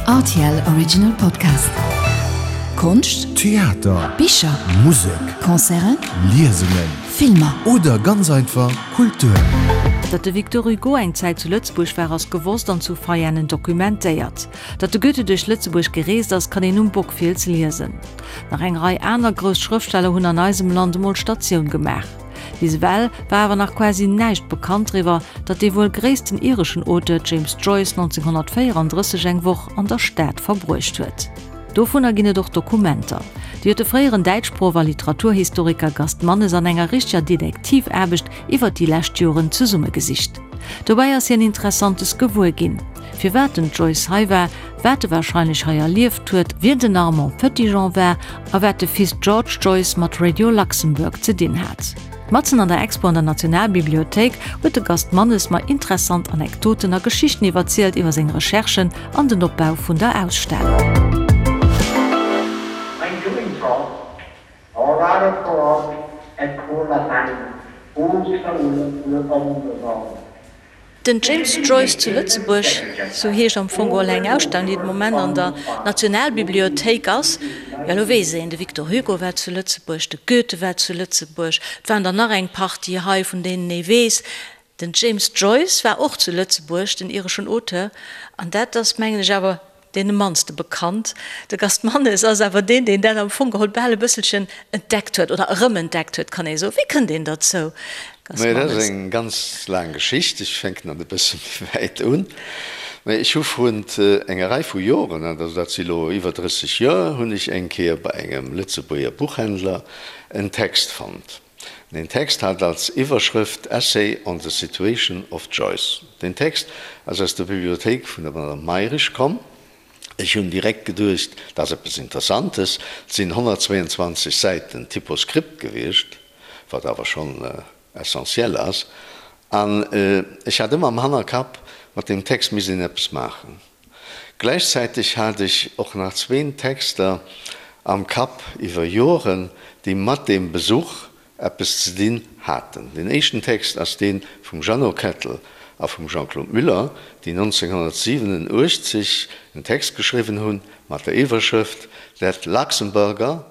Rtl Original Podcast. Konscht, Theater, Bicher, Musek, Concerten, Liesungen, Filmer. Oder ganz einfach Kultur. Datt de Victor Hugo eng Zäit zu Lëtzebuerg war, ass gewosst an zu Veianen dokumentéiert. Datt de Goethe duerch Lëtzebuerg gereest ass, kann een um Bockfiels liesen. Nach eng Rei aner grouss Schrëftsteller hunn an eisem Land emol Statioun gemaach. Bis ewell war awer nach quasi näischt bekannt driwwer, datt dee wuel gréissten ireschen Auteur James Joyce 1934 eng Woch an der Stad verbruecht huet. Dovunner ginn et och Dokumenter. Déi huet de fréieren Däitschproff a Literaturhistoriker Gast Mannes an enger richteger Detektivaarbecht iwwer déi lescht Joren zesummegesicht. Dobäi ass hien Interessantes gewuer ginn. Firwat den Joyce hei war, wat e warscheinlech hei erlieft huet, wien den Armand Petitjean war a wat de Fils George Joyce mat Radio Luxembourg ze dinn hat. Matzen an der Expo an der Nationalbibliothéik huet de Gast Mannes mer interessant Anekdoten a Geschichten iwwerzielt iwwer seng Recherchen an den Opbau vun der Ausstellung. When doing so, Orara et Den James Joyce zu Lëtzebuerg, sou heescht am Fong geholl eng Ausstellung, déi de Moment an der Nationalbibliothéik ass. Jo, elo weess een, de Victor Hugo war zu Lëtzebuerg, de Goethe war zu Lëtzebuerg, et waren der nach eng Partie hei, vun deenen ee weess. Den James Joyce war och zu Lëtzebuerg, den ireschen Auteur, an dat ass, mengen ech, awer Deen mannste bekannt. De Gast Mannes ass awer deen, deen dat am Fong geholl bal e bësselchen entdeckt huet, oder erëmentdeckt huet, kann ee soen. Wéi kënnt een derzou, Gast Majo, dat ass Mannes? eng ganz laang Geschicht. Ech fänken an e bësse méi wäit un. Mä ech hu vrun enger Rei vu Joren, also dat si lo iwwer 30 Joer, hunn ech eng Kéier bei engem Lëtzebuerger Buchhändler en Text fonnt. Deen Text hat als Iwwerschrëft Essay on the Situation of Joyce. Deen Text ass aus der Bibliothéik vun der Madame Mayrisch komm. Ech hunn direkt geduecht, dat ass eppes Interessantes. Et sinn 122 Säiten Typoskript gewiescht, wat awer schonn essentiel ass. An ech hat ëmmer am Hannerkapp, mat deem Text misst een eppes maachen. Gläichzäiteg hat ech och nach zween Texter am Kapp iwwer Joren, déi mat deem Besuch eppes ze dinn haten. Deen éischten Text ass dee vum Jeannot Kettel a vum Jean-Claude Muller, déi 1987 en Text geschriwwen hunn mat der Iwwerschrëft That Luxemburger,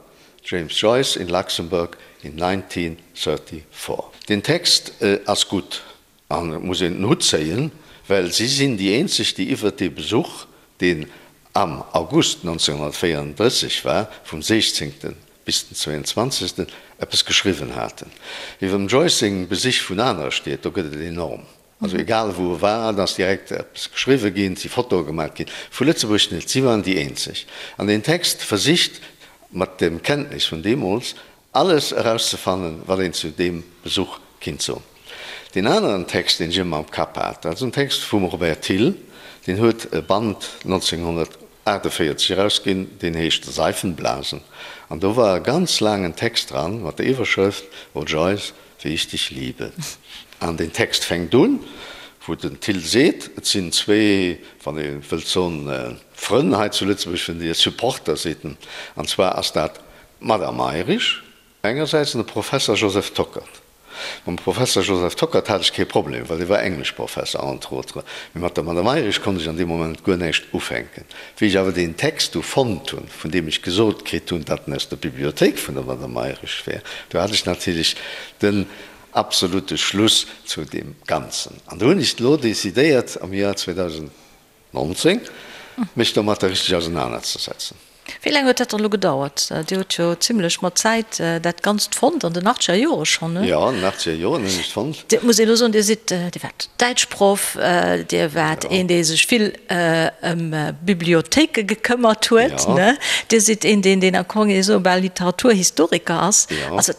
James Joyce in Luxembourg in 1934. Deen Text ass gutt. An et muss een den Hutt zéien, well si sinn déi eenzeg, déi iwwert dee Besuch, deen am August 1934 war, vum 16. bis den 22. Eppes geschriwwen haten. Iwwer dem Joyce seng Besich vun anere Stied, do gëtt et enorm. Also egal wou e war, et ass direkt eppes geschriwwe ginn, et si Fotoe gemaach ginn. Vu Lëtzebuerg net, si waren déi eenzeg. An deen Text versicht, mat dem Kenntnis vun deemools, Alles erauszefannen, wat een zu deem Besuch kinnt soen. Deen aneren Text, deen ech ëmmer am Kapp hat, dat ass en Text vum Robert Thill, deen huet e Band 1948 erausginn, deen heescht Seifenblasen. An do war e ganz laangen Text dran mat der Iwwerschrëft O Joyce, wie ich dich liebe. An deen Text fänkt un, wou den Thill seet, et sinn zwee, wann ee wëllt soen, Frënn hei zu Lëtzebuerg, vun dir, Supporter, seet en, an zwar ass dat D'Madame Mayrisch engersäits an de Professer Joseph Tockert. Mam Professer Joseph Tockert hat ech kee Problem, well dee war Engleschprofesser, entre autres, mee mat der Madame Mayrisch konnt ech an deem Moment guer näischt ufänken. Wéi ech awer deen Text du fonnt hunn, vun deem ech gesot kritt hunn, datt en aus der Bibliothéik vun der Madame Mayrisch wär, du hat ech natierlech den absolute Schluss zu deem Ganzen. An du hunn ech elo decidéiert am Joer 2000, 19, mech domatter richteg ausenanerzesetzen. Wéi laang huet dat dann elo gedauert? Dir hutt jo zimlech mat Zäit dat Ganzt fonnt, an den achtzeger Jore schonn, ne? Jo, an den achtzeger Joren hunn ech et fonnt. Et muss een elo soen, Dir sidd, Dir waart Däitschproff, Dir waart een, dee sech vill ëm Bibliothéike gekëmmert huet, ne? Dir sidd een, deen, deen am Fong esou bal Literaturhistoriker ass. Also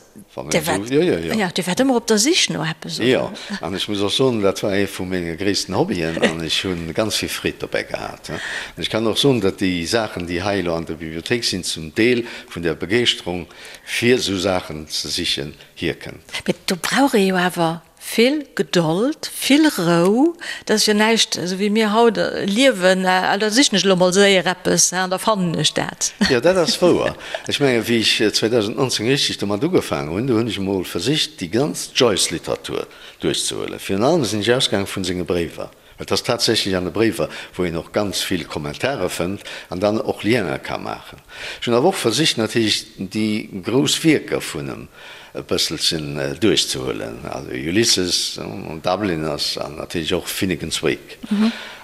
Dir waart, jo, Dir waart ëmmer op der Sich no eppes, oder? Jo, an ech muss och soen, dat war ee vu menge gréissten Hobbyen an ech hu ganz vill Freed dobäi gehat. An ech kann och soen, datt déi Saachen, déi hei elo an der Bibliothéik sinn, zum Deel vun där Begeeschterung, fir esou Saachen ze sichen, hierkënnt. Mee do brauch ee jo awer Vill Gedold, vill Rou, dat ass jo näischt esou wéi mir haut liewen, ah da sichen ech elo mol séier eppes an da fannen ech dat. Jo, dat ass wouer. Ech mengen, wéi ech 2019 richteg domat ugefaangen hunn, do hunn ech emol versicht, déi ganz Joyce-Literatur duerchzehuelen. Virun allem sinn ech ausgaange vun senge Bréiwer. Et ass tatsächlech an de Bréiwer, wou een och ganz vill Kommentare fënnt an dann och Liene ka maachen. Ech hunn awer och versicht natierlech déi grouss Wierker vun em e bësselchen duerchzehuelen, also Ulysses, Dubliners an natierlech och Finnegans Wake.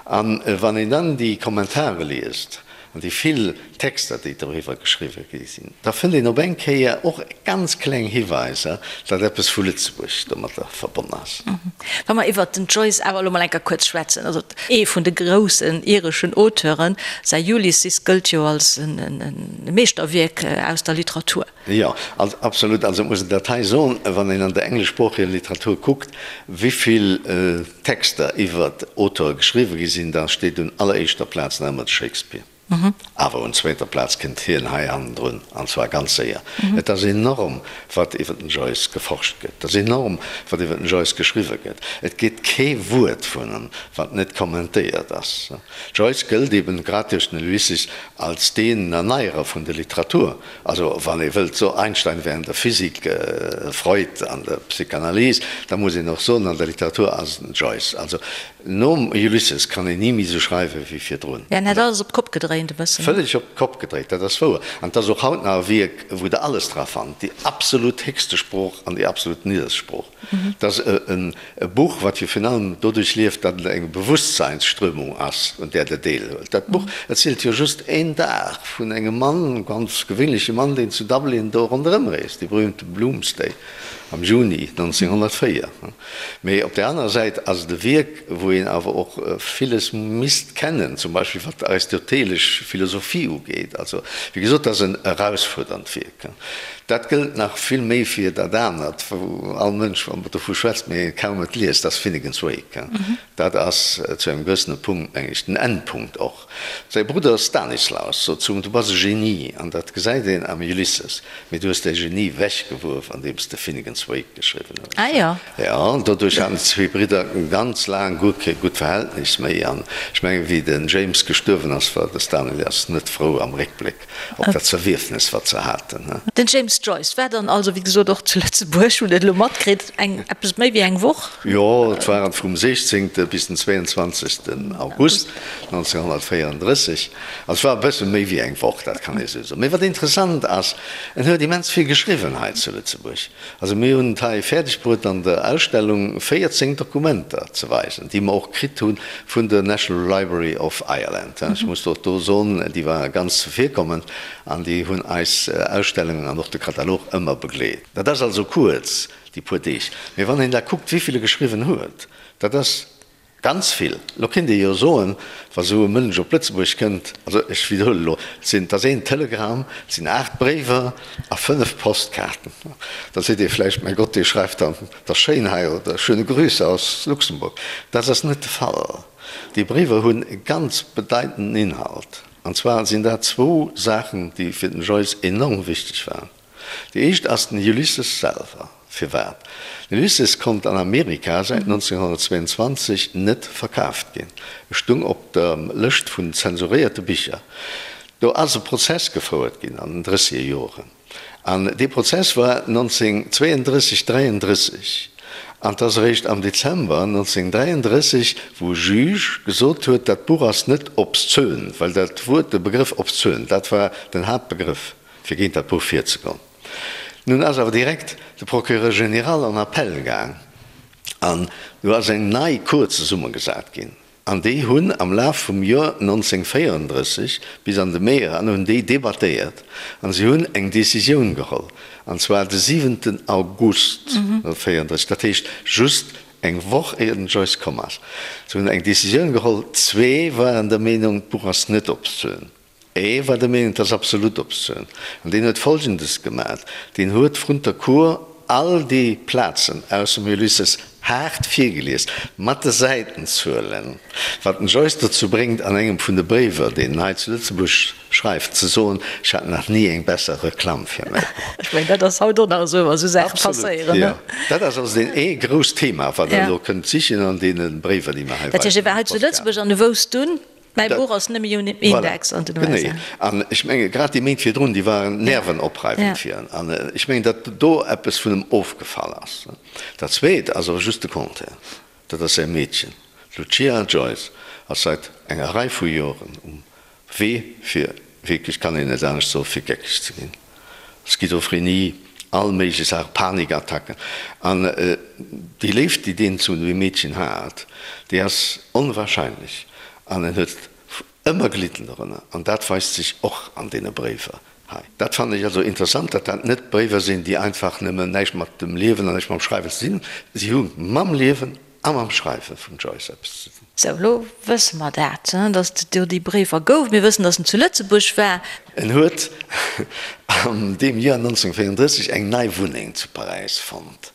An wann een dann déi Kommentare liest, An déi vill Texter, déi doriwwer geschriwwe gi sinn, da fënnt een op eng Kéier och ganz kleng Hiweiser, datt eppes vu Lëtzebuerg domatter verbonn ass. Wa mer iwwert den Joyce awer elo mol eng Kéier kuerz schwätzen, also ee vun de groussen ireschen Auteuren, säi Ulysses gëllt jo als e Meeschterwierk aus der Literatur. Jo, absolut. Also et muss een dat hei soen, wann een an der engleschsproocheger Literatur kuckt, wéi vill Texter iwwer Auteure geschriwwe gi sinn, da steet un alleréischter Plaz nach ëmmer de Shakespeare. Awer un zweeter Plaz kënnt hien hei hannendrun, an zwar ganz séier. Et ass enorm, wat iwwer den Joyce geforscht gëtt. Et ass enorm, wat iwwer den Joyce geschriwwe gëtt. Et gétt kee Wuert vun em, wat net kommentéiert ass. Joyce gëllt eben, grad duerch den Ulysses, als deen Erneierer vun der Literatur. Also wann ee wëllt soen, Einstein wär an der Physik, Freud an der Psychanalyse, da muss een och soen, an der Literatur ass et den Joyce. Also nom Ulysses kann een ni méi esou schreiwe wéi virdrun. En hätt alles op d'Kopp gedréint e bëssen. Vëlleg op d'Kopp gedréit, dat ass wouer. An et ass och haut nach e Wierk, wou Der alles dra fannt, déi absolut héchste Sprooch an déi absolut nidderst Sprooch. Et ass e Buch, wat jo virun allem doduerch lieft, datt et eng Bewusstseinsströmung ass, un där Der deelhuelt. Dat Buch erzielt jo just een Dag vun engem Mann, e ganz gewéinleche Mann, deen zu Dublin do ronderëm reest, dee berühmte Bloomsday am Juni 1904. Mee op där anerer Säit ass et e Wierk, wou een awer och villes misst kennen, zum Beispill wat d'aristotelesch Philosophie ugeet. Also, wéi gesot, et ass en erausfuerdernd Wierk. Dat gëllt nach vill méi fir dat anert, wou all Mënsch dovu schwätzt, mee kaum et liest, dat ass Finnegans Wake. Dat ass zu engem gewëssene Punkt, meng ech, den Endpunkt och. Säi Brudder Stanislaus sot zu him, Du bass e Genie, an dat gesäit een am Ulysses, mee du hues däi Genie wechgeworf, andeems de Finnegans Wake geschriwwen hues. Ah jo. Jo, an doduerch haten déi zwee Bridder ganz laang guer kee gutt Verhältnis méi. An ech mengen, wéi den James gestuerwen ass, war de Stanislaus net frou am Réckbléck. Op dat Zerwierfnes, wat se haten. Den James Joyce war dann also, wéi gesot, och zu Lëtzebuerg, hunn et elo matkritt, eng eppes méi wéi eng Woch. Jo, et waren vum 16. Bis den 22. August 1934. Also et war e bësse méi wéi eng Woch, dat kann ee sou soen. Mee wat interessant ass, en huet immens vill geschriwwen hei zu Lëtzebuerg. Also mir hunn et hei fäerdeg bruet an der Ausstellung 14 Dokumenter ze weisen, déi mer och kritt hu vun der National Library of Ireland. Ech muss och do soen, déi ware ganz zevirkommend an déi hunn eis Ausstellungen an och de Katalog ëmmer begleet. Dat ass also kuerz, déi puer Deeg. Mee wann een da kuckt, wéi vill e geschriwwen huet, dat ass Ganz vill. Elo kéint ee jo soen, wa sou e Mënsch op Lëtzebuerg kënnt, also ech widderhuelen elo, et sinn, et ass een Telegramm, et sinn 8 Bréiwer a 5 Postkaarten, da seet ee vläicht, mäi Gott, dee schreift dann, et ass schéin hei oder schöne Grüße aus Luxemburg. Dat ass net de Fall. Déi Bréiwer hunn e ganz bedeitenden Inhalt. An zwar sinn dat zwou Saachen, déi fir den Joyce enorm wichteg waren. Déi éischt ass den Ulysses selwer. Firwat? Den Ulysses konnt an Amerika säit 1922 net verkaaft ginn. E stung op der Lëscht vun zensuréierte Bicher. Do ass e Prozess gefouert ginn an den drësseger Joren. An dee Prozess war 1932, 33. An 't ass eréischt am Dezember 1933, wou e Juge gesot huet, dat Buch ass net obszön, well dat Wuert, de Begrëff obszön, dat war den Haaptbegrëff. fir géint dat Buch virzegoen. Nun ass awer direkt de Procureur général en Appel gaang an du ass eng nei Cour zesummegesat ginn an déi hunn am Laf vum Joer 1934 bis an de Mee eran hunn déi debattéiert an si hunn eng Décisioun geholl an zwar de siwenten August 1934, dat heescht just eng Woch éier den Joyce komm ass. Se hunn eng Décisioun geholl, zwee waren der Meenung, d'Buch ass net obszön. E war der Meenung, et ass absolut obszön. An deen huet Folgendes gemat, Deen huet vrun der Cour all déi Plazen aus dem Ulysses haart virgelies, mat de Säitenzuelen, wat den Joyce dozou bréngt, an engem vun de Bréiwer, deen en hei zu Lëtzebuerg schreift, ze soen, Ech hat nach ni eng besser Reklamm fir mäi Buch. Ech mengen, dat ass haut och nach esou, wa sou Saache passéieren, ne? Absolut, jo. Dat ass also deen ee grousst Thema, wat Der elo kënnt sichen an deene Bréiwer, déi mer hei Dat heescht, e war hei zu Lëtzebuerg an e wousst dunn, Mäi Buch ass nëmme jo net Index an den USA. Genee. An ech menge grad déi Méint virdrun, déi waren nervenopreifend fir en. An ech mengen, datt do eppes vun em ofgefall ass. Dat Zweet ass awer just de Contraire. Dat ass säi Meedchen. D'Lucia Joyce ass seit enger Rei vu Joren um Wee fir, wierklech kann een net anescht soen, fir geckeg ze ginn. Schizophrenie, all méiglech Saachen, Panikattacken. An déi Léift, déi deen zu deem Meedchen hat, déi ass onwahrscheinlech. An en huet ëmmer gelidden dorënner. An dat weist sech och an deene Bréiwer hei. Dat fannen ech also interessant, datt dat net Bréiwer sinn, déi einfach nëmmen näischt mat dem Liewen an näischt mam Schreiwen ze dinn hunn. Si hu mam Liewen a mam Schreiwe vum Joyce eppes ze dinn. Sou, elo wësse mer dat, datt et do déi Bréiwer gouf. Mir wëssen, datt en zu Lëtzebuerg war. En huet an deem Joer 1934 eng nei Wunneng zu Paräis fonnt.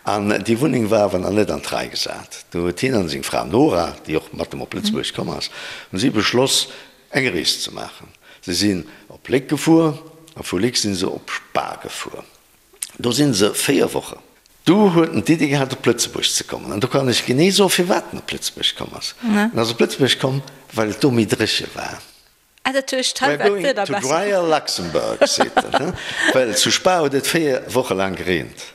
An déi Wunneng war awer nach net an d'Rei gesat. Do huet hien an seng Fra Nora, déi och mat em op Lëtzebuerg komm ass, hunn si beschloss, eng Rees ze maachen. Se sinn op Léck gefuer a vu Léck sinn se op Spa gefuer. Do si se 4 Wochen. Du huet en d'Iddi gehat op Lëtzebuerg ze kommen. An do kann ech genee soen, firwat en op Lëtzebuerg komm ass. En ass op Lëtzebuerg komm, well et do méi dréche war. Ah, dat heescht, hei We're war going d'Wieder to besser. drier Luxembourg, seet en, well zu Spa huet et 4 Woche laang gereent.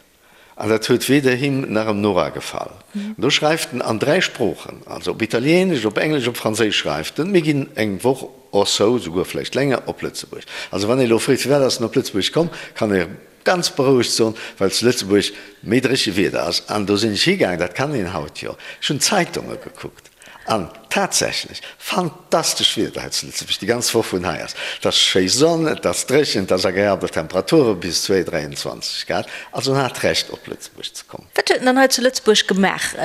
An dat huet weder him nach em Nora gefall. An do schreift en an 3 Sproochen, also op Italieenesch, op Englesch, op Franséisch schreift en, Mir ginn eng Woch or so, souguer vläicht länger, op Lëtzebuerg. Also wann ee elo freet, firwat ass en op Lëtzebuerg komm, kann ee ganz berouegt soen, well zu Lëtzebuerg méi dréche Wieder ass. An do sinn ech higaangen, dat kann een haut jo, ech hunn d'Zeitunge gekuckt an tatsächlech, fantastesch Wieder hei zu Lëtzebuerg déi ganz Woch vun hei ass. Et ass schéi Sonn, et ass dréchen, et ass agreabel Temperature bis 2, 23 Grad. Also en hat Recht op Lëtzebuerg ze kommen. Wat huet en dann hei zu Lëtzebuerg gemaach?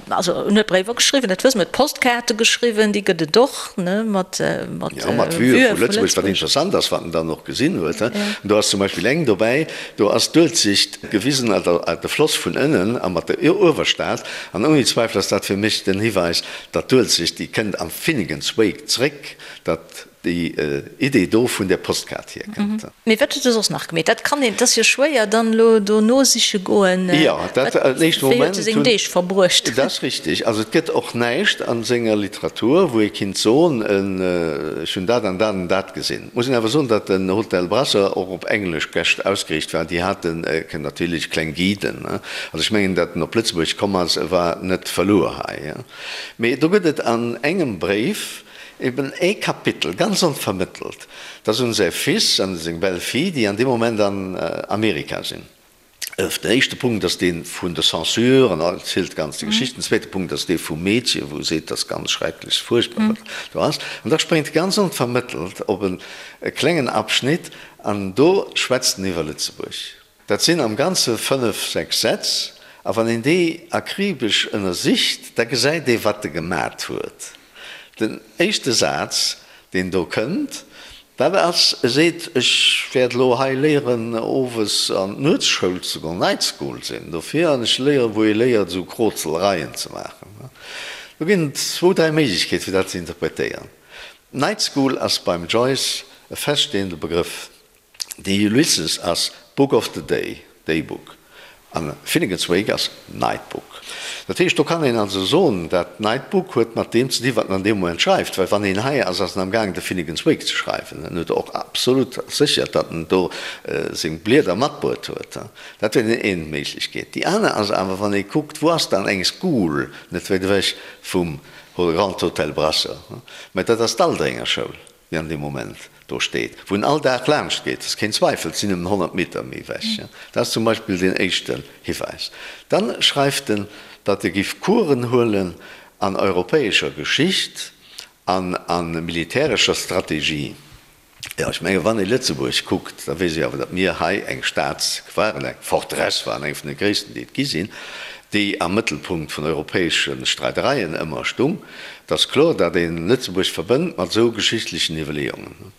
Also en huet Bréiwer geschriwwen, dat wësse mer, huet Postkaarte geschriwwen, déi gëtt et och, ne, mat Jo, mat Vue vu Lëtzebuerg. Wat interessant ass, wat en dann och gesinn huet, do ass zum Beispill eng dobäi, do ass d'Uelzecht gewisen, also de Floss vun ënnen a mat der Uewerstad. An ouni Zweifel ass dat fir mech den Hiweis, datt d'Uelzecht, déi kënnt am Finnegans Wake zréck, datt déi Idee do vun där Postkaart hierkënnt. Mee wat huet e soss nach gemeet? Dat kann een, et ass jo schwéier dann elo do nosiche goen. Jo, dat den éischte Wéi huet Moment e seng hunn. Deeg verbruecht? Dat ass richtig. Also et gëtt och näischt a senger Literatur, wou ee kinnt soen, ech hunn dat an dat an dat gesinn. Et muss een awer soen, datt den Hotel Brasseur och op englesch Gäscht ausgeriicht war. Déi haten natierlech kleng Guiden. Also ech mengen, datt en op Lëtzebuerg komm ass, e war net verluer hei. Mee do gëtt et an engem Bréif, Eben ee Kapitel, ganz onvermëttelt, dat ass un säi Fils an seng Belle-fille, déi an deem Moment an Amerika sinn. Den éischte Punkt ass dee vun der Censure an erzielt ganz déi Geschicht. Den zweete Punkt ass dee vum Meedche, wou e seet, dat ass ganz schrecklech, fuerchtbar, wat do ass. An da spréngt e ganz onvermëttelt op e klengen Abschnitt an do schwätzt en iwwer Lëtzebuerg. Dat sinn am Ganze fënnef, sechs Sätz, a wann een déi akribesch ënnersicht, da gesäit ee wat e gemat huet. Den éischte Saz, deen do kënnt, dat ass, e seet, ech wäert elo hei léieren owes an d'Nuetsschoul ze goen, Night School sinn dofir, an ech léieren, wou ee léiert esou Krozelereien ze maachen. Do ginn et zwou, dräi Méiglechkeete fir dat ze interpretéieren. Night School ass beim Joyce e feststehende Begrëff. De Ulysses ass Book of the Day, Day Book, an Finnegans Wake ass Night Book. Dat heescht, do kann een also soen, dat Night Book huet mat deem ze dinn, wat en an deem Moment schreift, well wann een hei ass, ass en am gaangen de Finnegans Wake ze schreiwen. En huet och absolut sécher, datt en do seng Blieder matbruet huet. Dat wier déi een Méiglechkeet. Déi aner ass awer, wann ee kuckt, wou ass dann eng School net wäit ewech vum Grand Hotel Brasseur, mä dat ass d'Aldrenger Schoul. déi an deem Moment do steet, wou en all Dag laanscht geet, ass keen Zweifel, et sinn nëmmen 100 Meter méi ewech. Dat ass zum Beispill deen éischten Hiwäis. Dann schreift en, datt e giff Coursen huelen an europäescher Geschicht an a militärescher Strategie. Jo, ech menge wann ee Lëtzebuerg kuckt, da weess ee awer, datt mir hei eng Stad waren, eng Forteresse waren, eng vun de gréissten, déi et gi sinn, déi am Mëttelpunkt vun europäesche Streidereien ëmmer stung. Et ass kloer, datt ee Lëtzebuerg verbënnt mat esou geschichtlechen Iwwerleeungen.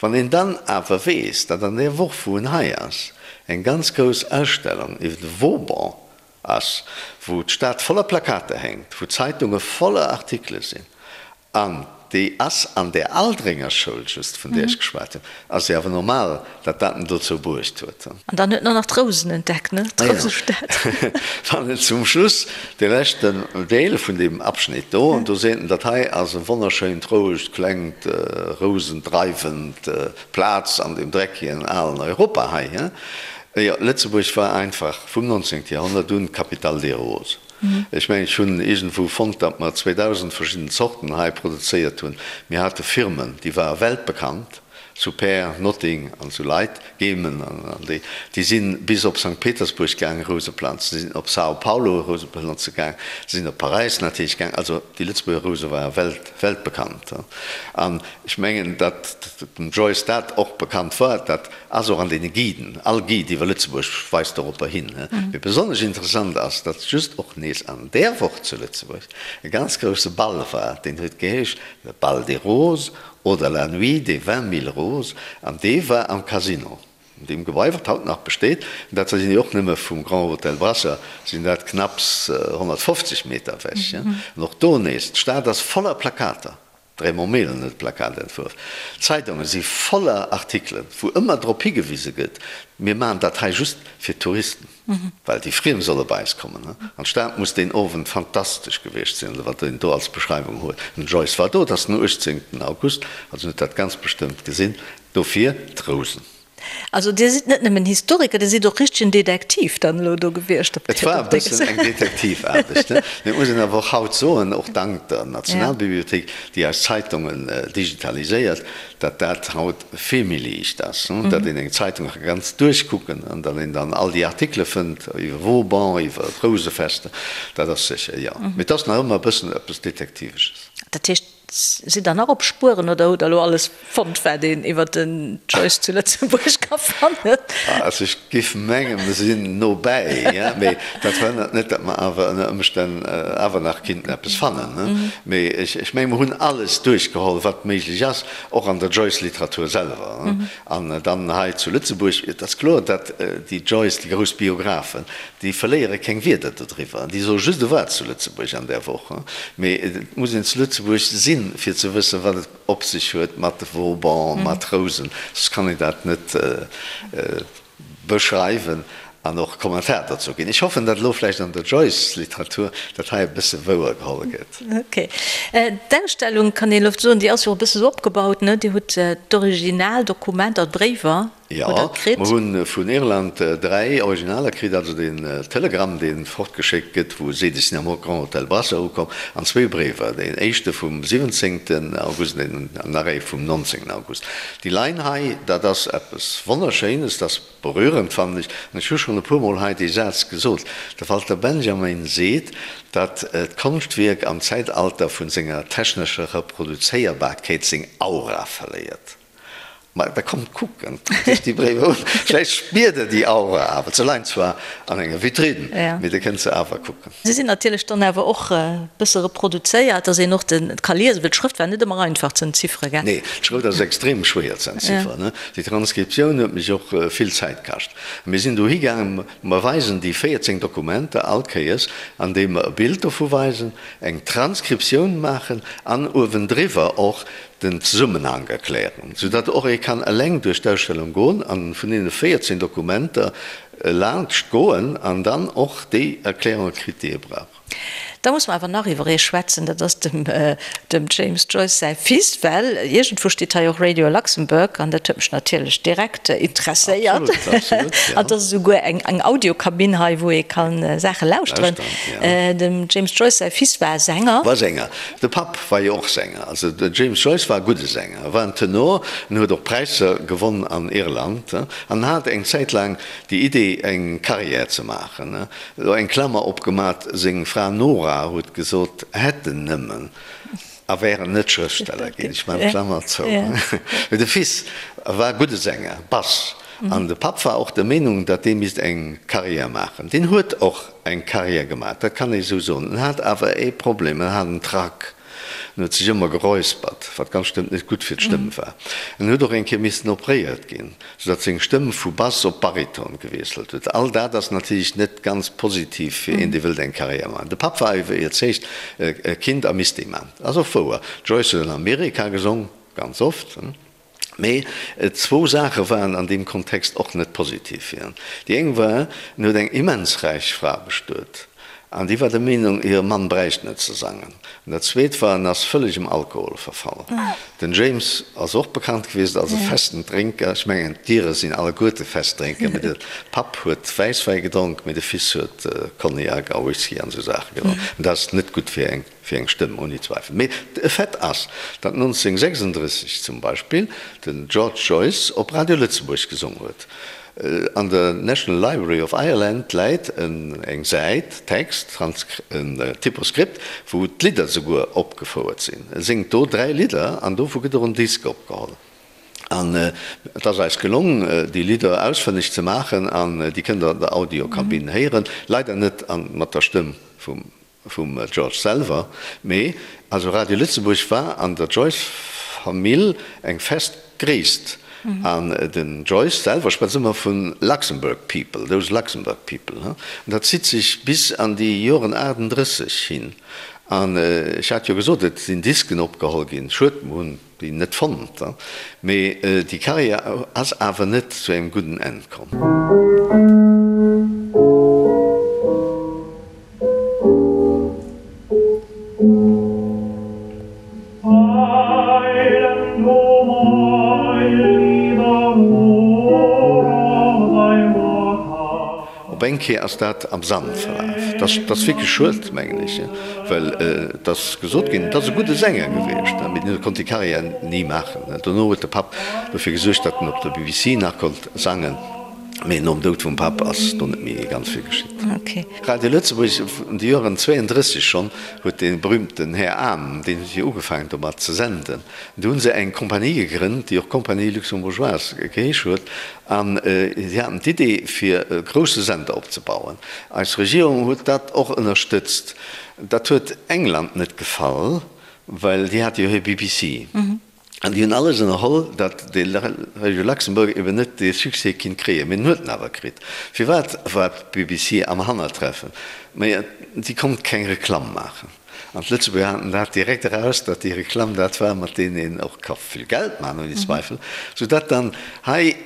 Wann een dann awer weess, datt an där Woch, wou en hei ass, eng ganz grouss Ausstellung iwwer de Vauban ass, wou d'Stad voller Plakater hänkt, wou d'Zeitunge voller Artikele sinn, An déi ass an där Aldringer Schoul just, vun där ech geschwat hunn, ass jo awer normal, datt dat en dozou bruecht huet. An dann huet en och nach d'Rousen entdeckt, ne? D'Rousestad. Wann en zum Schluss, dee leschten Deel vun deem Abschnitt do, an do seet en, dat hei ass e wonnerschéint, rouegt, klengt, rousendreiwend Plaz an deem dreckigen alen Europa hei. Jo, Lëtzebuerg war einfach vum 19. Joerhonnert un d'Capitale des Roses. Ech mengen, ech hunn iergendwou fonnt, datt mer 2.000 verschidden Zorten hei produzéiert hunn. Mir hate Firmen, déi ware weltbekannt, zu Pär, Notting an esou Leit, Gemen an déi, déi si bis op Sankt Petersburg gaange Rouse planzen, si sinn op São Paulo Rouse planze gaang, si sinn op Paräis natierlech gaang. Also déi Lëtzebuerger Rouse ware welt, weltbekannt. An ech mengen, datt dem Joyce dat och bekannt war, dat ass och an deene Guiden, all Guide iwwer Lëtzebuerg weist doropper hin. Mee besonnesch interessant ass, datt just och nees an där Woch zu Lëtzebuerg e ganz grousse Ball war, deen huet geheescht Le Bal des Roses Oder La nuit des vingt mille roses, an dee war am Casino, an deem Gebai, wat haut nach besteet, an dat sinn jo och nëmme vum Grand Hôtel Brasser sinn dat knapps 150 Meter ewech. An och do nees, d'Stad ass voller Plakater, de Raymond Mehlen huet d'Plakat entwuerf, d'Zeitunge si voller Artikelen, wou ëmmer drop higewise gëtt, mir maachen dat hei just fir d'Touristen. Well déi Friem solle bei eis kommen. An d'Stad muss deen Owend fantastesch gewiescht sinn, oder wat een do als Beschreiwung huet. Den Joyce war do, et ass den 18. August, also en huet dat ganz bestëmmt gesinn. Dofir d'Rousen. Also Dir sidd net nëmmen Historiker, Dir sidd och richtegen Detektiv dann elo do gewiescht op Et war e bëssen eng Detektivaarbecht, ne? Mee et muss een awer och haut soen, och dank der Nationalbibliothéik, déi eis Zeitungen digitaliséiert, datt dat haut vill méi liicht ass, datt een eng Zeitung ka ganz duerchkucken an datt een dann all déi Artikele fënnt iwwer Vauban, iwwer d'Rousefester, dat ass sécher, jo. Mee et ass nach ëmmer e bëssen eppes Detektivesches. Dat heescht, sidd Der nach op Spueren oder hutt Der elo alles fonnt, wat een iwwer den Joyce zu Lëtzebuerg ka fannen? Also ech géif mengen, mer sinn no bäi, mee dat verhënnert net, datt mer awer ënner Ëmstänn awer nach kinnten eppes fannen. Mee ech mengen, mer hunn alles duerchgeholl, wat méiglech ass. Och an der Joyce-Literatur selwer. An dann hei zu Lëtzebuerg, et ass kloer, datt déi Joyce, déi grouss Biographen, déi verléiere keng Wierder dodriwwer. Déi soe just e war zu Lëtzebuerg an där Woch. Mee et muss een zu Lëtzebuerg sinn, fir ze wëssen, wat et op sech huet mat Vauban, mat Rousen. Soss kann een dat net. Beschreiwen an och Kommentar dozou ginn. Ech hoffen, datt elo vläicht an der Joyce-Literatur dat hei e bësse wouer geholl gëtt. Ok. D'Ausstellung, kann een elo soen, déi ass jo och e bësse sou opgebaut, ne? Dir hutt d'Originaldokumenter, d'Bréiwer hutt Der kritt. Jo, mer hu vun Irland 3 Originaler kritt, also den Telegramm, dee fortgeschéckt gëtt, wou seet, ech sinn am Grand Hôtel Brasser ukomm, an zwee Bréiwer, deen éischte vum 17. August an nach ee vum 19. August. Déi Line hei, dat ass eppes Wonnerschéines, dat ass berührend, fannen ech. An ech hu schonn e puermol hei dee Saz gesot, De Walter Benjamin seet, datt d'Konschtwierk am Zäitalter vun senger technescher Reproduzéierbarkeet seng Aura verléiert. Ma da kommt kucken, kuckt iech déi Bréiwer un, vläicht spiert der déi Aura awer. Se leien zwar an enger Vitrinn, mee der kënnt se awer kucken. Se sinn natierlech dann awer och e bësse reproduzéiert, dass een och de ka liesen, well d'Schrëft war net ëmmer einfach ze entziffere, gell? Nee, d'Schrëft ass extrem schwéier ze entzifferen. Déi Transkriptioun huet mech och vill Zäit kascht. Mir sinn dohi gaangen, mer weisen déi 14 Dokumenter all Kéiers, andeem mer e Bild dovu weisen, eng Transkriptioun maachen an uewendriwwer och den Zesummenhank erklären, soudatt och ee kann eleng duerch d'Ausstellung goen an vun deene 14 Dokumenter laanscht goen an dann och déi Erklärunge kritt, déi ee brauch. Da muss mer awer nach iwwer ee schwätzen, dat ass dem dem James Joyce säi Fils, well iergendwou steet hei och Radio Luxembourg an dat huet mech natierlech direkt interesséiert. Absolut, absolut, ja. An et ass esouguer eng eng Audiokabinn hei, wou ee ka Saache lauschteren. Lauschteren, ja. Dem James Joyce säi Fils war Sänger. War Sänger. De Papp war jo och Sänger. Also den James Joyce war e gudde Sänger, e war en Tenor, en huet och Präisser gewonn an Irland an hat eng Zäit laang déi Idee eng Carrière ze maachen. Elo eng Klammer opgemat, seng Fra Nora huet gesot, hätt en nëmmen a wär en net Schrëftsteller ginn. Ech maachen d'Klammer zou. Mee de Fils war e gudde Sänger, Bass, an de Papp war och der Meenung, datt dee misst eng Carrière maachen. Deen huet och eng Carrière gemaach, dat kann ee sou soen. En hat awer ee Problem, en hat en Trac. En huet sech ëmmer geräuspert, wat ganz bestëmmt net gutt fir d'Stëmm war. En huet och eng Kéier missen opréiert ginn, soudatt seng Stëmm vu Bass op Bariton gewiesselt huet. All dat ass natierlech net ganz positiv fir een, dee wëllt eng Carrière maachen. De Papp war iwwerzeegt, e kinnt a misst ee maachen. Ass och wouer, d'Joyce huet an Amerika gesong, ganz oft. Mee zwou Saache waren an deem Kontext och net positiv fir en. Déi eng war, en huet eng immens räich Fra bestuet. An déi war der Meenung, hire Mann bräicht net ze sangen. An dat Zweet war, en ass vëlleg em Alkohol verfall. Den James ass och bekannt gewiescht als e festen Drénker. Ech mengen, d'Ire sinn alleguerte fest Drénker, mee de Papp huet Wäisswäi gedronk, mee de Fils huet Cognac a Whisky an esou Saache gedronk. An dat ass net gutt fir eng fir eng Stëmm, ouni Zweifel. Mee e Fait ass, datt 1936 zum Beispill den George Joyce op Radio Lëtzebuerg gesong huet. An der National Library of Ireland läit eng Säit Text, en Typoskript, wou d'Lidder souguer opgefouert sinn. E séngt do 3 Lidder an dovu gëtt och en Disk opgeholl. An et ass eis gelong, déi Lidder ausfënneg ze maachen an déi kënnt der an der Audiokabinn héieren. Leider net mat der Stëmm vum Vum George selwer, mee also Radio Lëtzebuerg war an der Joyce-Famill eng fest Gréisst. An den Joyce selwer schwätzt ëmmer vu Luxembourg people, those Luxembourg people. An dat zitt sech bis an déi Joren 38 hin. An ech hat jo gesot, et sinn Disken opgeholl ginn. Schued, mer hunn déi net fonnt, mee déi Karriär ass awer net zu engem gudden Enn komm. Op eng Kéier ass dat am Sand verlaf. Dat ass wierklech schued, mengen ech, well et ass gesot ginn, et ass e gudde Sänger gewiescht, mee deen konnt déi Karriär ni maachen. Dono huet de Papp dofir gesuergt, datt en op der BBC nach konnt sangen, mee nom Doud vum Papp ass do net méi ganz vill geschitt. Radio Lëtzebuerg, an de Joren 32 schonn, huet dee berühmten Här Ahm, deen huet jo ugefaangen domat ze senden. Do hu se eng Kompanie gegrënnt, déi och Compagnie Luxembourgeoise geheesch huet, An si haten d'Idee, fir e grousse Sender opzebauen. Eis Regierung huet dat och ënnerstëtzt. Dat huet England net gefall, well déi hate jo hir BBC. An déi hunn alles ënnerholl, datt de Radio Luxembourg eben net dee Succès kinnt kréien. Mee en huet en awer kritt. Firwat war d'BBC am Hannertreffen? Mä si konnt keng Reklamm maachen. An d'Lëtzebuerger haten dat direkt eraus, datt déi Reklamm dat war, mat deenen een och ka vill Geld maachen, ouni Zweifel, soudatt dann hei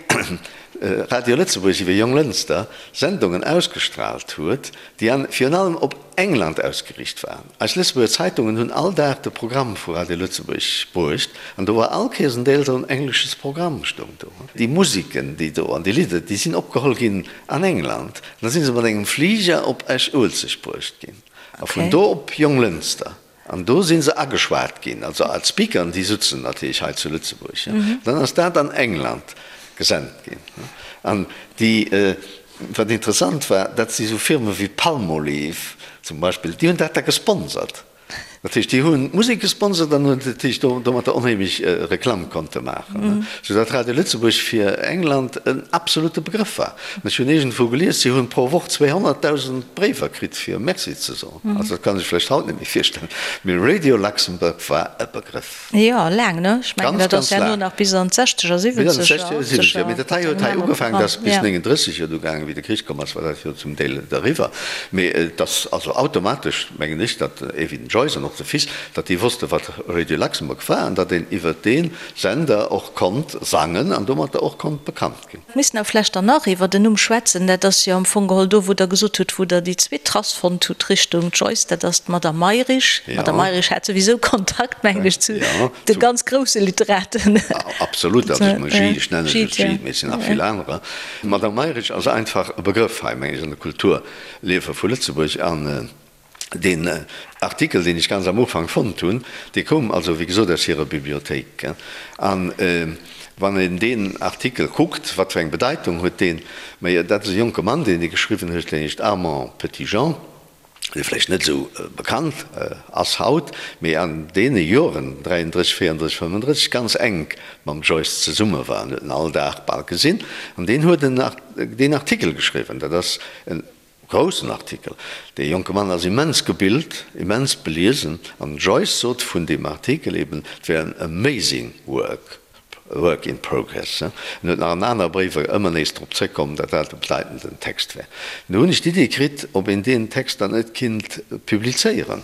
Radio Lëtzebuerg iwwer Jonglënster Sendungen ausgestrahlt huet, déi an virun allem op England ausgeriicht waren. Eis Lëtzebuerger Zeitungen hunn all Dag de Programm vu Radio Lëtzebuerg bruecht, an do war all Kéiers en Deel esou en englesches Programm stoung do. Déi Musiken, déi do an déi Lidder, déi sinn opgeholl ginn an England, an da si se mat engem Fliger op Esch-Uelzecht bruecht ginn. A vun do op Jonglënster. An do si se ageschwat ginn, also als Speakern, déi sutzen natierlech hei zu Lëtzebuerg. Dann ass dat an England gesent ginn. An déi, wat interessant war, dat si sou Firme wéi Palmolive zum Beispill, déi hunn dat da gesponsert. Dat heescht, déi hunn d'Musek gesponsert an hunn natierlech domatter onheemlech Reklamm konnte maachen, soudatt Radio Lëtzebuerg fir England en absolute Begrëff war. Ech hunn iergendwou gelies, si hunn pro Woch 200.000 Bréiwer kritt fir Merci ze soen. Also dat kann ech vläicht haut net méi virstellen, mee Radio Luxembourg war e Begrëff. Jo, laang, ne? Ech mengen, dat ass herno nach bis an d'Sechzeger, Siwwenzeger, Achtzeger. Mee dat hei huet hei ugefaangen, dat ass bis 39 jo du gaangen, wéi de Krich komm ass, war dat jo zum Deel eriwwer. Mee et ass also automatesch, mengen ech, datt ee wéi den Joyce an och de Fils, datt déi wosste wat Radio Luxembourg war an datt een iwwer dee Sender och konnt sangen an domatter och konnt bekannt ginn. Missten awer vlächcht dann nach iwwer den Numm schwätzen. Dat ass jo am Fong geholl do, wou Der gesot hutt, wou Der déi zweet Trass fonnt hutt Richtung Joyce, dat ass d'Madame Mayrisch. D'Madame Mayrisch hat souwisou Kontakt, mengen ech, zu de ganz grousse Literaten. Absolut, also ech menge Gide, ech nennen ech Gide, mee et sinn nach vill anerer. D'Madame Mayrisch ass einfach e Begrëff hei, meng ech, an de Kulturliewe vu Lëtzebuerg. An Deen Artikel, deen ech ganz am Ufank fonnt hunn, dee koum also, wéi gesot, aus hirer Bibliothéik. An wann een deen Artikel kuckt, wat fir eng Bedeitung huet deen? Mä dat ass e jonke Mann, deen dee geschriwwen huet, deen heescht Armand Petitjean, dee vläicht net esou bekannt ass haut, mee an deene Joren, 33, 34, 35, ganz enk mam Joyce zesumme war. En huet en all Dag bal gesinn. An deen huet deen Artikel geschriwwen. Dat ass en Groussen Artikel. Dee jonke Mann ass immens gebilt, immens beliesen an den Joyce sot vun deem Artikel eben, et wär en amazing work, a work in progress. En huet nach an aner Bréiwer ëmmer nees drop zréckkomm, datt dat e bedeitenden Text wär. Du hunn ech d'Idee kritt, ob een deen Text dann net kinnt publizéieren.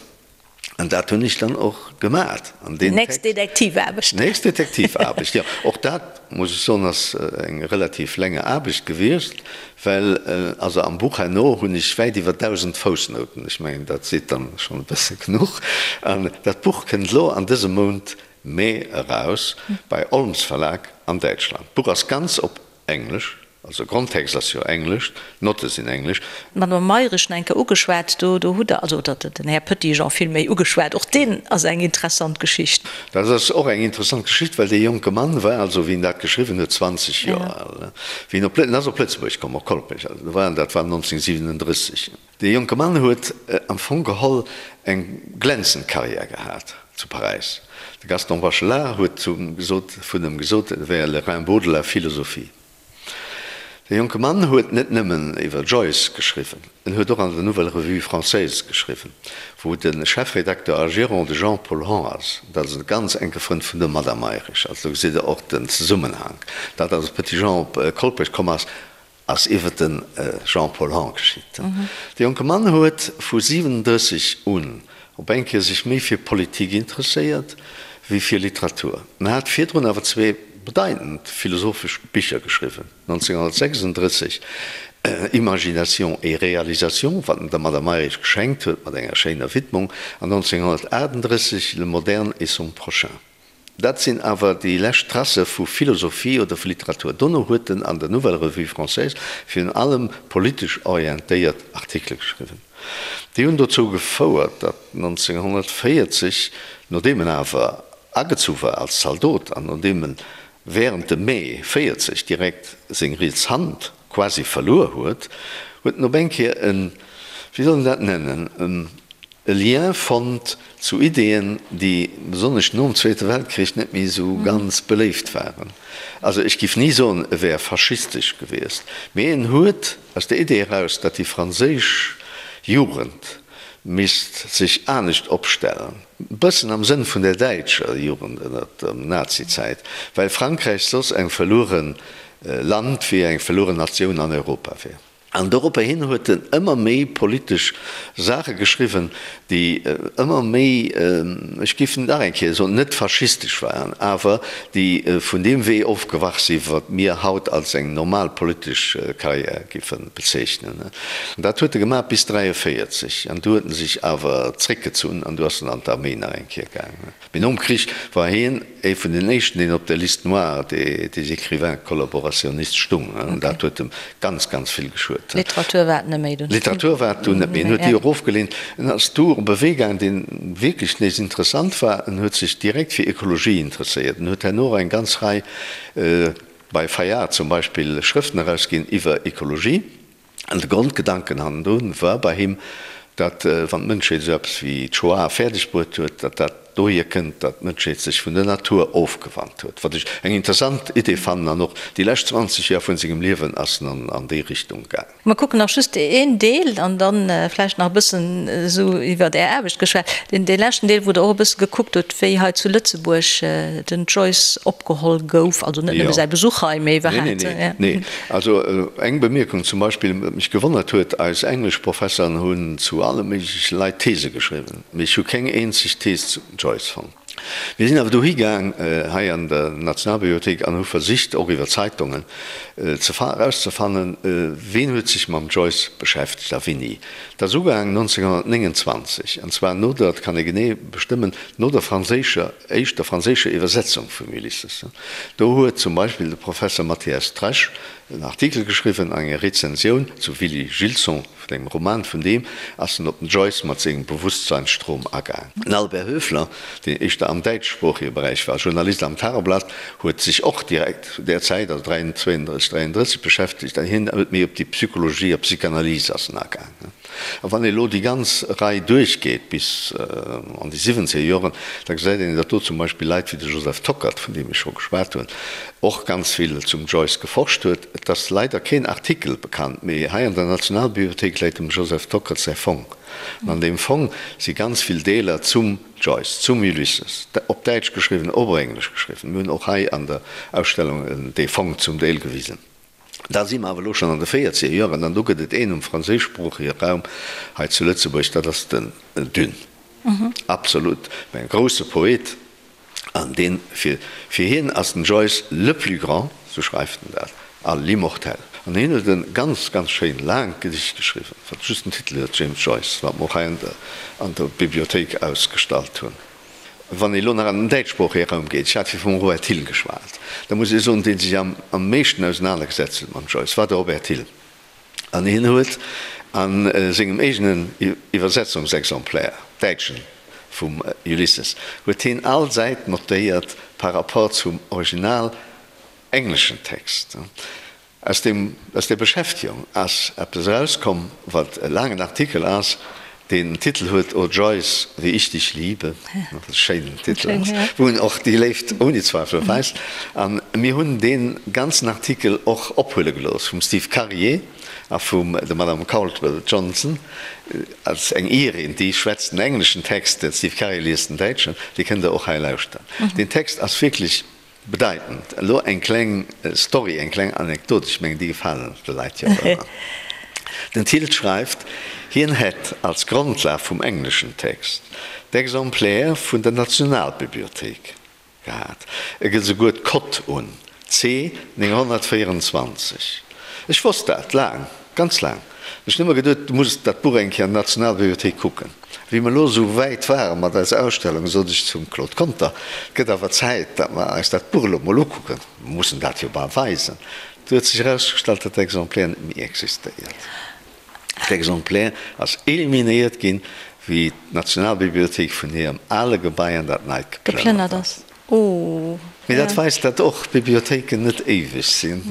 An dat hunn ech dann och gemat. An deen Nächst Detektivaarbecht. Nächst Detektivaarbecht, jo. Och dat, muss ech soen, ass eng relativ länger Aarbecht gewiescht, well also am Buch herno hunn ech wäit iwwer 1.000 Foussnouten. Ech mengen, dat seet dann schonn e bësse genuch. An dat Buch kënnt elo an dësem Mount Mee eraus bei Olms Verlag an Däitschland. D'Buch ass ganz op Englesch, also Grondtext ass jo Englesch, d'Notte sinn Englesch. D'Madame Mayrisch nach eng Kéier ugeschwat, do do hutt Der, also oder den Här Petitjean villméi ugeschwat, och deen ass eng interessant Geschicht. Dat ass och eng interessant Geschicht, well dee jonke Mann war also, wéi en dat geschriwwen huet, 20 Joer al. Wéi en op, en ass op Lëtzebuerg komm, op Kolpech, also do war en, dat war 1937. Dee jonke Mann huet am Fong geholl eng glänzend Karriär gehat zu Paräis. De Gaston Bachelard huet gesot, vun em gesot, e wär le Rimbaud de la philosophie. Dee jonke Mann huet net nëmmen iwwer Joyce geschriwwen, en huet och an der Nouvelle Revue Française geschriwwen, wou de Chefredakteur a Gérant de Jean-Paul Hon ass. Dat ass e ganz enke Frënd vun der Madame Mayrisch. Also do gesitt Der och den Zesummenhank. Dat, datt de Petitjean op Kolpech komm ass, Ass iwwer de Jean-Paul Hahn geschitt. De jonke Mann huet vu 37 un op eng Kéier sech méi fir Politik interesséiert wéi fir Literatur. En hat virdrun awer zwee bedeitend philosophesch Bicher geschriwwen, 1936 Imagination et réalisation, wat en der Madame Mayrisch geschenkt huet mat enger schéiner Widmung, an 1938 Le moderne et son prochain. Dat sinn awer déi lescht Tracë vu Philosophie oder vu Literatur. Dono huet en an der Nouvelle Revue Française virun allem politesch orientéiert Artikele geschriwwen. Déi hunn dozou gefouert, datt 1940, nodeem en awer agezu war als Zaldot an nodeem en wärend dem Mee 40 direkt seng riets Hand quasi verluer huet, huet en op eng Kéier en, wéi soll een dat nennen, e Lien fonnt zu Ideeën, déi besonnesch nom Zweete Weltkrich net méi esou ganz beléift waren. Also ech giff ni soen, e wär faschistesch gewiescht, mee en huet aus der Idee eraus, datt déi franséisch Jugend misst sech anescht opstellen, e bëssen am Sënn vun der däitscher Jugend ënnert der Nazizäit, well Frankräich soss eng verluere Land wier, eng verlueren Natioun an Europa wier. An doropper hin huet en ëmmer méi politesch Saache geschriwwen, déi ëmmer méi, ech géif nach eng Kéier soen, net faschistesch waren, awer déi vun deem Wee ofgewach si wat mir haut als eng normal politesch Karriär géife bezeechnen. An dat huet e gemaach bis 43, an du huet en sech awer zréckgezunn an du ass en an d'Arméi nach eng Kéier gaangen. Mee nom Krich war hien ee vun den éischten, deen op der Liste noire des écrivains collaborationnistes stung. Dat huet em ganz, ganz vill geschuet. Literatur war et net méi dunn. Literatur war et dunn net méi. En huet déi och ofgeleent. En ass du op e Wee gaangen, dee wierklech nees interessant war. En huet sech direkt fir Ekologie interesséiert. En huet herno och eng ganz Rei, bei Fayard zum Beispill, Schrëften erausginn iwwer Ekologie. An de Grondgedanken hannendrun war bei him, datt wann d'Mënschheet esou eppes wéi d'Shoah fäerdeg bruet huet, datt dat dohier kënnt, datt d'Mënschheet sech vun der Natur ofgewannt huet. Wat ech eng interessant Idee fannen. An och déi lescht 20 Joer vun sengem Liewen ass en an déi Richtung gaangen. Mer kucken nach just een Deel an dann vläicht nach e bëssen esou iwwert Är Aarbecht geschwat. Deen dee leschten Deel, wou Der och e bësse gekuckt hutt, wéi hei zu Lëtzebuerg den Joyce opgeholl gouf, also net nëmme säi Besuch hei, mee iwwerhaapt. Nee, nee, nee. Also eng Bemierkung zum Beispill, wat mech gewonnert huet, Eis Engleschprofesseren hunn zu alle méigleche Leit These geschriwwen, mee ech hu keng eenzeg Thees zum Joyce fonnt. Mir sinn awer dohi gaang, hei an der Nationalbibliothéik, an hu versicht, och iwwer Zeitungen ze erauszefannen, ween huet sech mam Joyce beschäftegt a wéini. Dat ass ugaang 1929, an zwar no der, dat kann ee genee bestëmmen, no der franséischer, éischter franséischer Iwwersetzung vum Ulysses. Do huet zum Beispill de Professer Mathias Tresch en Artikel geschriwwen an enger Rezensioun zu Willy Gilson, vun engem Roman vun deem, ass en op den Joyce mat sengem Bewusstseinsstrom agaang. Den Albert Höfler, deen éischter am däitschsproochege Beräich war, Journalist am Tageblatt, huet sech och direkt zu där Zäit, also 32, 33, beschäftegt an hien huet méi op déi Psychologie a Psychanalyse ass en agaang. A wann ee elo déi ganz Rei duerchgeet bis an déi siwwenzeger Joren, da gesäit een, datt do zum Beispill Leit wéi de Joseph Tockert, vun deem ech scho geschwat hunn, och ganz vill zum Joyce geforscht huet. Et ass leider keen Artikel bekannt, mee hei an der Nationalbibliothéik läit dem Joseph Tockert säi Fong. An an deem Fong si ganz vill Deeler zum Joyce, zum Ulysses, op Däitsch geschriwwen, op Englesch geschriwwen. Mir hunn och hei an der Ausstellung dee Fong zum Deel gewisen. Da si mer awer elo schonn an de véierzeger Joren, an do gëtt et een um franséischsproochege Raum hei zu Lëtzebuerg, dat ass den Dune. Absolut, e grousse Poet. An deen, fir, fir hien ass den Joyce le plus grand, sou schreift en dat, a l'immortel. An hien huet e ganz, ganz schéin laangt Gedicht geschriwwen, wat just den Titel huet, James Joyce, wat mer och hei an der, an der Bibliothéik ausgestallt hunn. Wann ee lo nach an den däitschsproochege Raum geet, ech hat vir vum Robert Thill geschwat, da muss ee soen, dee sech am, am meeschten ausenanergesetzt huet mam Joyce, war de Robert Thill. An hien huet a sengem eegenen Iwwersetzungsexemplaire, däitschen, vum Ulysses, huet hien all Säit notéiert par rapport zum original engleschen Text. Aus deem, aus där Beschäftegung ass eppes erauskomm, wat e laangen Artikel ass, deen den Titel huet O Joyce, wie ich dich liebe, wat e schéinen Titel ass, wou en och déi Léift ouni Zweifel weist. A mir hunn dee ganzen Artikel och ophuele gelooss vum Steve Karier a vum der Madame Caldwell Johnson, als eng Irin, déi schwätzt den engleschen Text, de Steve Karier liest den däitschen, dee kënnt Der och hei lauschteren. Deen Text ass wierklech Bedeitend. Elo eng kleng Story, eng kleng Anekdot, ech mengen déi gefalen de Leit jo och ëmmer. Den Thill schreift, hien hätt als Grondlag vum engleschen Text d'Exemplaire vun der Nationalbibliothéik gehat. E gëtt esouguer d'Cote un, C 924. Ech wosst dat laang, ganz laang. Ech hunn ëmmer geduet, du muss dat Buch eng Kéier an der Nationalbibliothéik kucken. Wéi mer elo esou wäit ware mat eiser Ausstellung, sot ech zum Claude Conter, Et gëtt awer Zäit, datt mer eis dat Buch elo mol ukucken. Mer mussen dat jo bal weisen. Du huet sech erausgestallt, datt d'Exemplaire net méi existéiert. D'Exemplaire ass eliminéiert ginn, wéi d'Nationalbibliothéik vun hirem ale Gebai an dat neit geplënnert ass. Mee dat weist, datt och Bibliothéiken net éiweg sinn.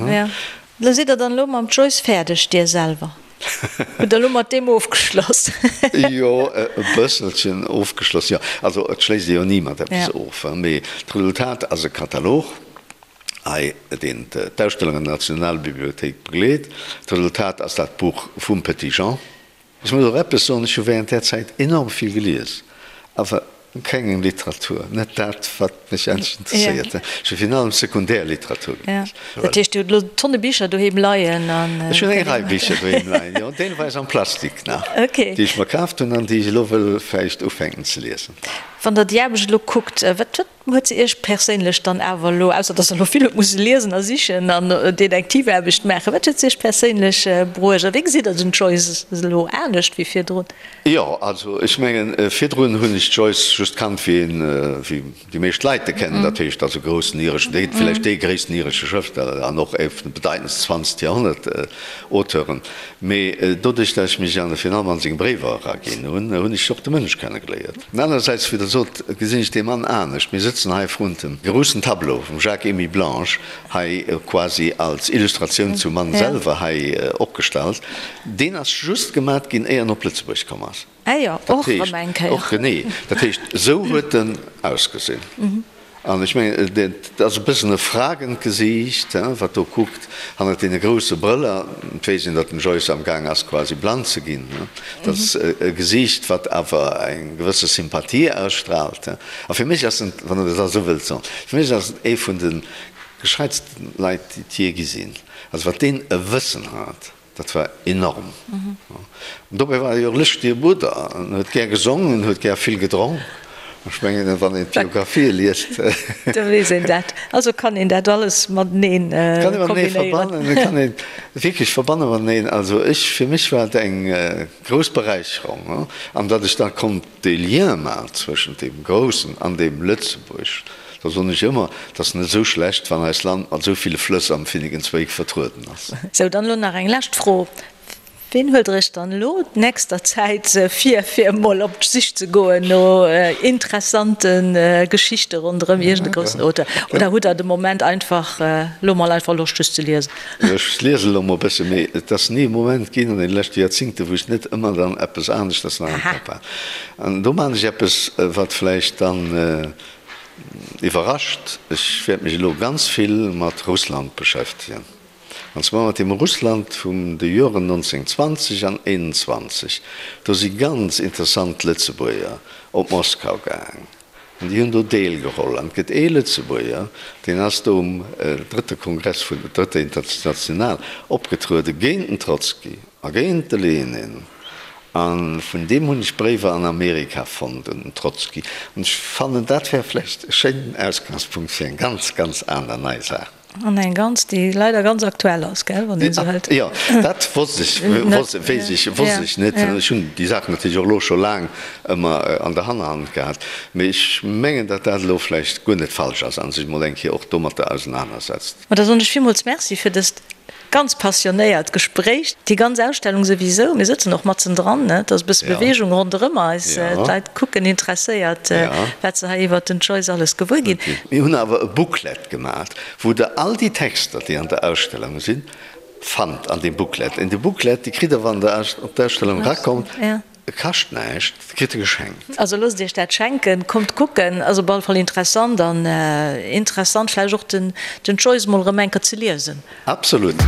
Lo sidd der dann elo mam Joyce fäerdeg, dir selwer? Hutt der elo mat deem ofgeschloss? Jo, e bësselchen ofgeschloss, jo. Also et schléisst ee jo ni mat eppes of, mee d'Resultat ass e Katalog, hei, deen d'Ausstellung an der Nationalbibliothéik begleet. D'Resultat ass dat Buch vum Petit-Jean. Ech muss och eppes soen, ech hu während där Zäit enorm vill gelies, awer keng Literatur, net dat, wat mech endlech interesséiert. Ech hu virun allem Sekundärliteratur gelies. Dat heescht, Dir hutt elo Tonne Bicher doheem leien? Ech hunn eng Rei Bicher doheem leien, jo, deelweis am Plastik nach, déi ech mer kaaft hunn an déi ech elo wëll vläicht ufänken ze liesen. Wann Der déi Aarbecht elo kuckt, wat Huet se Iech perséinlech dann awer elo, ausser dass Der elo vill hutt musse liesen a sichen an Detektivaarbecht maachen, wat huet se Iech perséinlech bruecht a wéi gesitt Der den Joyce elo anescht wéi virdrun? Jo, also ech mengen, virdrun hunn ech d'Joyce just kannt wéi een, wéi déi meescht Leit e kennen, dat heescht als e groussen ireschen, dee vläicht dee gréissten iresche Schrëftsteller an och ee vun de bedeitendsten zwanzegt Joerhonnert Auteuren. Mee doduerch, dat ech mech an virun allem an seng Bréiwer eraginn hunn, hunn ech och de Mënsch kennegeléiert. An anerersäits, wéi Der sot, gesinn ech dee Mann anescht. Mir sëtzen hei vrun dem groussen Tableau vum Jacques-Émile Blanche, hei quasi als Illustratioun zum Mann selwer hei opgestallt. Deen ass just gemat ginn, éier en op Lëtzebuerg komm ass. Ah jo, och erëm eng Kéier. Och, genee. Dat heescht, esou huet en ausgesinn. An ech mengen, et ass e bëssen e fragend Gesiicht, wat do kuckt, hannert deene grousse Brëller. Et weess een, datt den Joyce am Gaang ass, quasi blann ze ginn. Dat ass e Gesiicht, wat awer eng gewësse Sympathie ausstraalt. A fir mech ass en, wann Der dat esou wëllt soen, fir mech ass et ee vun de gescheitsten Leit, déi et jee gi sinn. Also wat deen e Wëssen hat! Dat war enorm. An dobäi war e jo e lëschtege Brudder. En huet gär gesongen, en huet gär vill gedronk. Ech mengen, wann een d'Biografië liest. Da weess een dat. Also kann een dat alles mateneen kombinéieren. Kann ee matenee verbannen. Et kann een wierklech verbanne mateneen. Also ech, fir mech war et eng grouss Beräicherung. An datt ech da konnt dee Lien maachen zwëschent deem Groussen an deem Lëtzebuerg. Da soen ech ëmmer, et ass net esou schlecht, wann eist Land mat esou ville Flëss am Finnegans Wake vertrueden ass. Sou, dann elo nach eng lescht Fro, Ween huelt Der Iech dann elo d'nächster Zäit vir, fir emol op d'Sich ze goen no interessante Geschichte ronderëm iergend e groussen Auteur? Oder hutt Der de Moment einfach elo mol einfach Loscht just ze liesen? Ech liesen elo mol e bësse, mee et ass ni e Moment ginn an deene leschte Joerzingte, wou ech net ëmmer dann eppes aneschters nach am Kapp hat. An do maachen ech eppes, wat vläicht dann Iwwerrascht, ech wäert mech elo ganz vill mat Russland beschäftegen, an zwar mat dem Russland vum de Joren 1920 an 21. Do si ganz interessant Lëtzebuerger op Moskau gaang an déi hunn do deelgeholl. An et gëtt ee Lëtzebuerger, deen ass do um drëtte Kongress vun der Drëtter International opgetruede géint den Trotzki a géint de Lenin. A vun deem hunn ech Bréiwer an Amerika fonnt, un den Trotzki. An ech fannen, dat wär vläicht e schéinen Ausgangspunkt fir eng ganz, ganz aner nei Saach. An eng ganz, déi leider ganz aktuell ass, gell, wann een esou hëlt. Jo, dat wosst ech, weess ech, wosst ech net. Ech hunn déi Saach natierlech och elo scho laang ëmmer an der Hannerhand gehat. Mee ech mengen, datt dat elo vläicht guer net falsch ass a sech emol eng Kéier och domatter ausenanersetzt. Ma da soen ech villmools Merci fir dëst ganz passionéiert Gespréich. Déi ganz Ausstellung souwisou, mir sëtzen och matzen dran, ne, et ass e bësse Beweegung ronderëm eis, d'Leit kucken interesséiert, wat se hei iwwert den Joyce alles gewuer ginn. Mir hunn awer e Booklet gemaach, wou Der all déi Texter, déi an der Ausstellung sinn, fannt an deem Booklet. An dee Booklet, dee kritt Der, wann Der op d'Ausstellung erakommt. E kascht näischt, et kritt e geschenkt. Also loosst iech dat schenken, kommt kucken, ass op alle Fall interessant an interessant vläicht och den Joyce mol erëm eng Kéier ze liesen. Absolut.